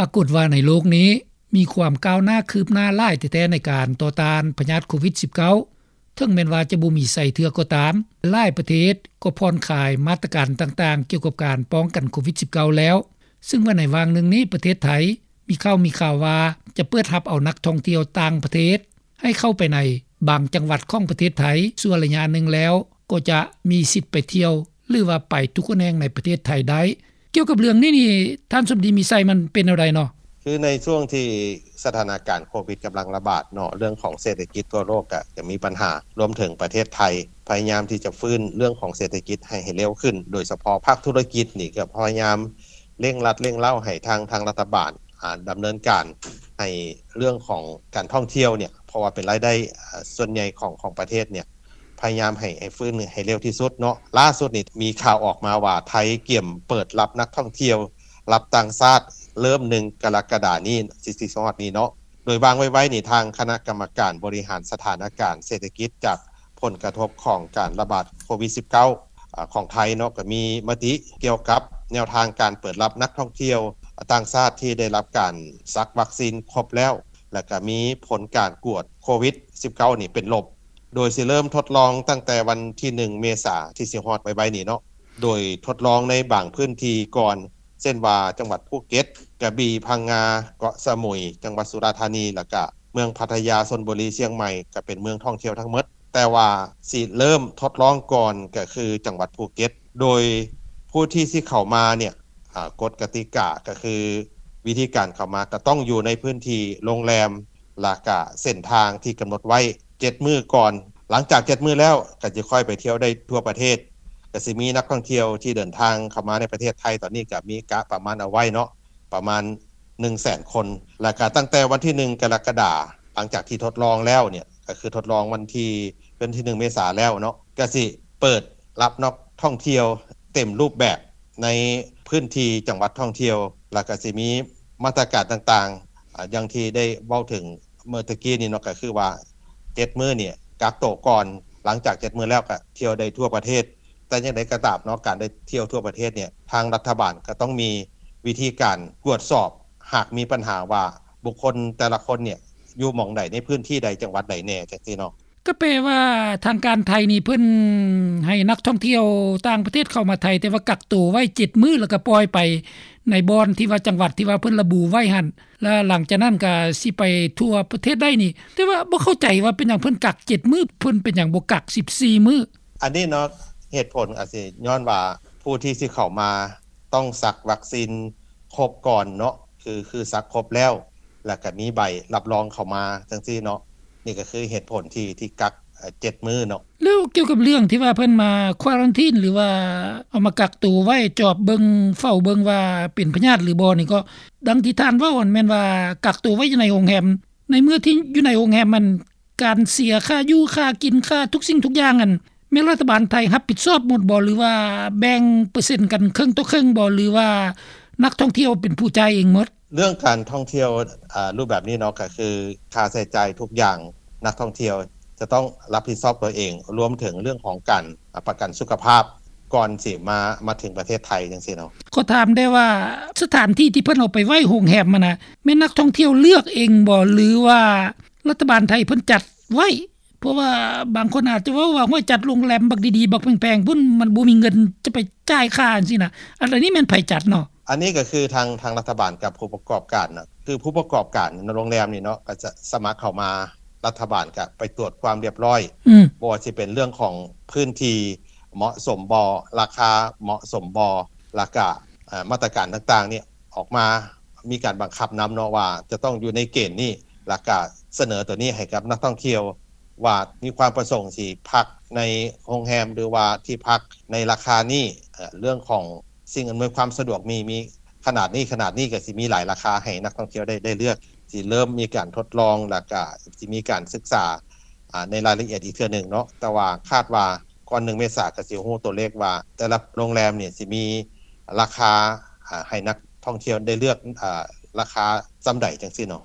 ປາກົດວ່າໃນໂລກນີ້ ມີຄວາມກ້າວໜ້າຄືບໜ້າຫຼາຍແທ້ໆ ໃນການຕໍ່ຕ້ານພະຍາດໂຄວິດ-19. ເຖິງແມ່ນວ່າຈະບໍ່ມີໃຊ້ເທື່ອກໍຕາມ, ຫຼາຍປະເທດກໍຜ່ອນຄາຍມາດຕະການຕ່າງໆ ກ່ຽວກັບການປ້ອງກັນໂຄວິດ-19 ແລ້ວ, ຊຶ່ງວ່າໃນຫວ່າງໜຶ່ງນີ້ ປະເທດໄທມີຂ່າວ ມີຂ່າວວ່າຈະເປີດຮັບເອົານັກທ່ອງທ່ຽວຕ່າງປະເທດ ໃຫ້ເຂົ້າໄປໃນບາງຈັງຫວັດຂອງປະເທດໄທ ຊົ່ວໄລຍະໜຶ່ງແລ້ວ ກໍຈະມີສິດໄປທ່ຽວ ຫຼືວ່າໄປທຸກແຫ່ງໃນປະເທດໄທໄດ້. ກ່ຽວກັບເລື່ອງນີ້ນີ້ ທ່ານສົມດີ ມີໄຊ ມັນເປັນແນວໃດເນາະ? ຄືໃນຊ່ວງທີ່ສະຖານະການໂຄວິດກຳລັງລະບາດເນາະ, ເລື່ອງຂອງເສດຖະກິດທົ່ວໂລກກະຈະມີບັນຫາ, ລວມເຖິງປະເທດໄທ ພະຍາຍາມທີ່ຈະຟື້ນເລື່ອງຂອງເສດຖະກິດໃຫ້ ໃຫ້ເລັວຂຶ້ນ, ໂດຍສະເພາະພາກທຸລະກິດນີ້ກໍພະຍາຍາມເລັ່ງລັດເລັ່ງເລົາໃຫ້ທາງ ທາງລັດຖະບານ ອ່າ ດຳເນີນການໃຫ້ເລື່ອງຂອງການທ່ອງທ່ຽວເນຍ ເພາະວ່າເປັນລາຍໄດ້ ອ່າ ສ່ວນໃຫຍ່ຂອງ ຂອງປະເທດເນຍ ພະຍາຍາມໃຫ້ ໃຫ້ຟື້ນໃຫ້ເລັວທີ່ສຸດເນາະ. ລ່າສຸດນີ້ມີຂ່າວອອກມາວ່າ ໄທກຽມເປີດຮັບນັກທ່ອງທ່ຽວ ຮັບຕ່າງຊາດ ເລີ່ມໜຶ່ງ ກໍລະກະດານີ້ ຊິ ຊິຮອດນີ້ເນາະ. ໂດຍວ່າງໄວໆນີ້ ທາງຄະນະກຳມະການບໍລິຫານສະຖານະການເສດຖະກິດ ຈາກຜົນກະທົບຂອງການລະບາດໂຄວິດ-19 ອາ ຂອງໄທເນາະ ກໍມີມະຕິກ່ຽວກັບແນວທາງການເປີດຮັບນັກທ່ອງທ່ຽວຕ່າງຊາດທີ່ໄດ້ຮັບການສັກວັກຊີນຄົບແລ້ວ ແລະ ກໍມີຜົນການກວດໂຄວິດ-19 ນີ້ເປັນລົບ, ໂດຍຊິເລີ່ມທົດລອງຕັ້ງແຕ່ວັນທີໜຶ່ງ ເມສາ ທີ່ຊິຮອດໄວໆນີ້ເນາະ. ໂດຍທົດລອງໃນບາງພື້ນທີ່ກ່ອນ ເຊັ່ນວ່າ ຈັງຫວັດພູເກັດ, ກະບີ, ພັງງາ, ເກາະສະໝຸຍ, ຈັງຫວັດສຸລາທານີ ແລ້ວກະເມືອງພັດທະຍາ, ຊົນບຸລີ, ຊຽງໃໝ່ ກະເປັນເມືອງທ່ອງທ່ຽວທັງໝົດ. ແຕ່ວ່າຊິເລີ່ມທົດລອງກ່ອນ ກະຄືຈັງຫວັດພູເກັດ. ໂດຍຜູ້ທີ່ຊິເຂົ້າມາເນຍ ອາ ກົດກະຕິກາກະຄື ວິທີການເຂົ້າມາກະຕ້ອງຢູ່ໃນພື້ນທີ່ໂຮງແຮມ ແລ້ວກະເສັ້ນທາງທີ່ກຳນົດໄວ້ເຈັດມື້ກ່ອນ. ຫຼັງຈາກເຈັດມື້ແລ້ວ ກະຈະຄ່ອຍໄປທ່ຽວໄດ້ທົ່ວປະເທດ. ກະຊິມີນັກທ່ອງທ່ຽວທີ່ເດີນທາງເຂົ້າມາໃນປະເທດໄທ ຕອນນີ້ກະມີກະປະມານເອົາໄວ້ເນາະ ປະມານໜຶ່ງແສນຄົນ. ແລ້ວກະຕັ້ງແຕ່ວັນທີໜຶ່ງ ກໍລະກະດາ ຫຼັງຈາກທີ່ທົດລອງແລ້ວເນຍ ກໍຄືທົດລອງວັນທີ ວັນທີໜຶ່ງ ເມສາແລ້ວເນາະ ກໍຊິເປີດຮັບນັກທ່ອງທ່ຽວເຕັມຮູບແບບໃນພື້ນທີ່ຈັງຫວັດທ່ອງທ່ຽວ. ແລ້ວກໍຊິມີມາດຕະການຕ່າງໆ ອາ ຢ່າງທີ່ໄດ້ເວົ້າເຖິງເມື່ອຕະກີ້ນີ້ເນາະ ກໍຄືວ່າເຈັດມື້ນີ້ກັກໂຕກ່ອນ, ຫຼັງຈາກເຈັດມື້ແລ້ວກໍທ່ຽວໄດ້ທົ່ວປະເທດ. ແຕ່ຢ່າງໃດກໍຕາມເນາະ ການໄດ້ທ່ຽວທົ່ວປະເທດເນຍ ທາງລັດຖະບານກໍຕ້ອງມີວິທີການກວດສອບ ຫາກມີບັນຫາວ່າບຸກຄົນແຕ່ລະຄົນເນຍ ຢູ່ໝ່ອງໃດ ໃນພື້ນທີ່ໃດ ຈັງຫວັດໃດແດ່ ຈັ່ງຊີ້ເນາະ. ກໍແປວ່າທາງການໄທນີ້ເພິ່ນໃຫ້ນັກທ່ອງທ່ຽວຕ່າງປະເທດເຂົ້າມາໄທ ແຕ່ວ່າກັກໂຕໄວ້ເຈັດມື້ ແລ້ວກໍປ່ອຍໄປໃນບ່ອນທີ່ວ່າ ຈັງຫວັດທີ່ວ່າເພິ່ນລະບຸໄວ້ຫັ້ນ ແລ້ວຫຼັງຈາກນັ້ນກໍຊິໄປທົ່ວປະເທດໄດ້ນີ້. ແຕ່ວ່າບໍ່ເຂົ້າໃຈວ່າເປັນຫຍັງເພິ່ນກັກເຈັດມື້ ເພິ່ນເປັນຫຍັງບໍ່ກັກສິບສີ່ມື້? ອັນນີ້ເນາະ ເຫດຜົນອາດຊິຍ້ອນວ່າຜູ້ທີ່ຊິເຂົ້າມາຕ້ອງສັກວັກຊີນຄົບກ່ອນເນາະ ຄື ຄືສັກຄົບແລ້ວ ແລ້ວກໍມີໃບຮັບຮອງເຂົ້າມາຈັ່ງຊີ້ເນາະ. ນີ້ກໍຄືເຫດຜົນທີ່ ທີ່ກັກ ເອີ່ ເຈັດມື້ເນາະ. ແລ້ວກ່ຽວກັບເລື່ອງທີ່ວ່າເພິ່ນມາຄວາຣັນທີນ ຫຼືວ່າເອົາມາກັກໂຕໄວ້ ຈອບເບິ່ງ ເຝົ້າເບິ່ງວ່າເປັນພະຍາດຫຼືບໍ່ນີ້ ກໍດັ່ງທີ່ທ່ານເວົ້າຫັ້ນ ແມ່ນວ່າກັກໂຕໄວ້ຢູ່ໃນໂຮງແຮມ. ໃນເມື່ອທີ່ຢູ່ໃນໂຮງແຮມ ມັນ ການເສຍຄ່າຢູ່ຄ່າກິນ ຄ່າທຸກສິ່ງທຸກຢ່າງ ອັນ ແມ່ນລັດຖະບານໄທຮັບຜິດຊອບໝົດບໍ່ ຫຼືວ່າແບ່ງເປີເຊັນກັນເຄິ່ງຕໍ່ເຄິ່ງບໍ່ ຫຼືວ່ານັກທ່ອງທ່ຽວເປັນຜູ້ຈ່າຍເອງໝົດ? ເລື່ອງການທ່ອງທ່ຽວ ອາ ຮູບແບບນີ້ເນາະ ກໍຄືຄ່າໃຊ້ຈ່າຍທຸກຢ່າງ ນັກທ່ອງທ່ຽວຈະຕ້ອງຮັບຜິດຊອບຕົວເອງ ລວມເຖິງເລື່ອງຂອງການ ອາ ປະກັນສຸຂະພາບ ກ່ອນຊິມາ ມາເຖິງປະເທດໄທຈັ່ງຊີ້ເນາະ. ຂໍຖາມແດ່ວ່າ ສະຖານທີ່ທີ່ເພິ່ນເອົາໄປໄວ້ໂຮງແຮມຫັ້ນນະ ແມ່ນນັກທ່ອງທ່ຽວເລືອກເອງບໍ່ ຫຼືວ່າລັດຖະບານໄທເພິ່ນຈັດໄວ້? ເພາະວ່າບາງຄົນອາດຈະເວົ້າວ່າ ໂອ້ຍ ຈັດໂຮງແຮມບັກດີໆ ບັກແພງໆ ພຸ້ນ ມັນບໍ່ມີເງິນຈະໄປຈ່າຍຄ່າຈັ່ງຊີ້ນະ. ອັນ ອັນນີ້ແມ່ນໃຜຈັດເນາະ? ອັນນີ້ກໍຄືທາງ ທາງລັດຖະບານກັບຜູ້ປະກອບການນະ ຄືຜູ້ປະກອບການໂຮງແຮມນີ້ເນາະ ກໍຈະສະໝັກເຂົ້າມາ ລັດຖະບານກໍໄປກວດຄວາມຮຽບຮ້ອຍ ອືມ ບໍ່ວ່າຊິເປັນເລື່ອງຂອງພື້ນທີ່ເໝາະສົມບໍ່ ລາຄາເໝາະສົມບໍ່ ແລ້ວກະ ເອີ່ ມາດຕະການຕ່າງໆນີ້ອອກມາ ມີການບັງຄັບນຳເນາະ ວ່າຈະຕ້ອງຢູ່ໃນເກນນີ້ ແລ້ວກະສະເໜີຕົວນີ້ໃຫ້ກັບນັກທ່ອງທ່ຽວ ວ່າມີຄວາມປະສົງຊິພັກໃນໂຮງແຮມ ຫຼືວ່າທີ່ພັກໃນລາຄານີ້ ເອີ່ ເລື່ອງຂອງສິ່ງອຳນວຍຄວາມສະດວກມີ ມີຂະໜາດນີ້ ຂະໜາດນີ້ ກໍຊິມີຫຼາຍລາຄາໃຫ້ນັກທ່ອງທ່ຽວໄດ້ ໄດ້ເລືອກ. ຊິເລີ່ມມີການທົດລອງ ແລ້ວກະຊິມີການສຶກສາ ອາ ໃນລາຍລະອຽດອີກເທື່ອໜຶ່ງເນາະ ແຕ່ວ່າຄາດວ່າກ່ອນໜຶ່ງເມສາ ກໍຊິຮູ້ຕົວເລກວ່າແຕ່ລະໂຮງແຮມນີ້ຊິມີລາຄາ ອາ ໃຫ້ນັກທ່ອງທ່ຽວໄດ້ເລືອກ ອາ ລາຄາສ່ຳໃດຈັ່ງຊີ້ເນາະ.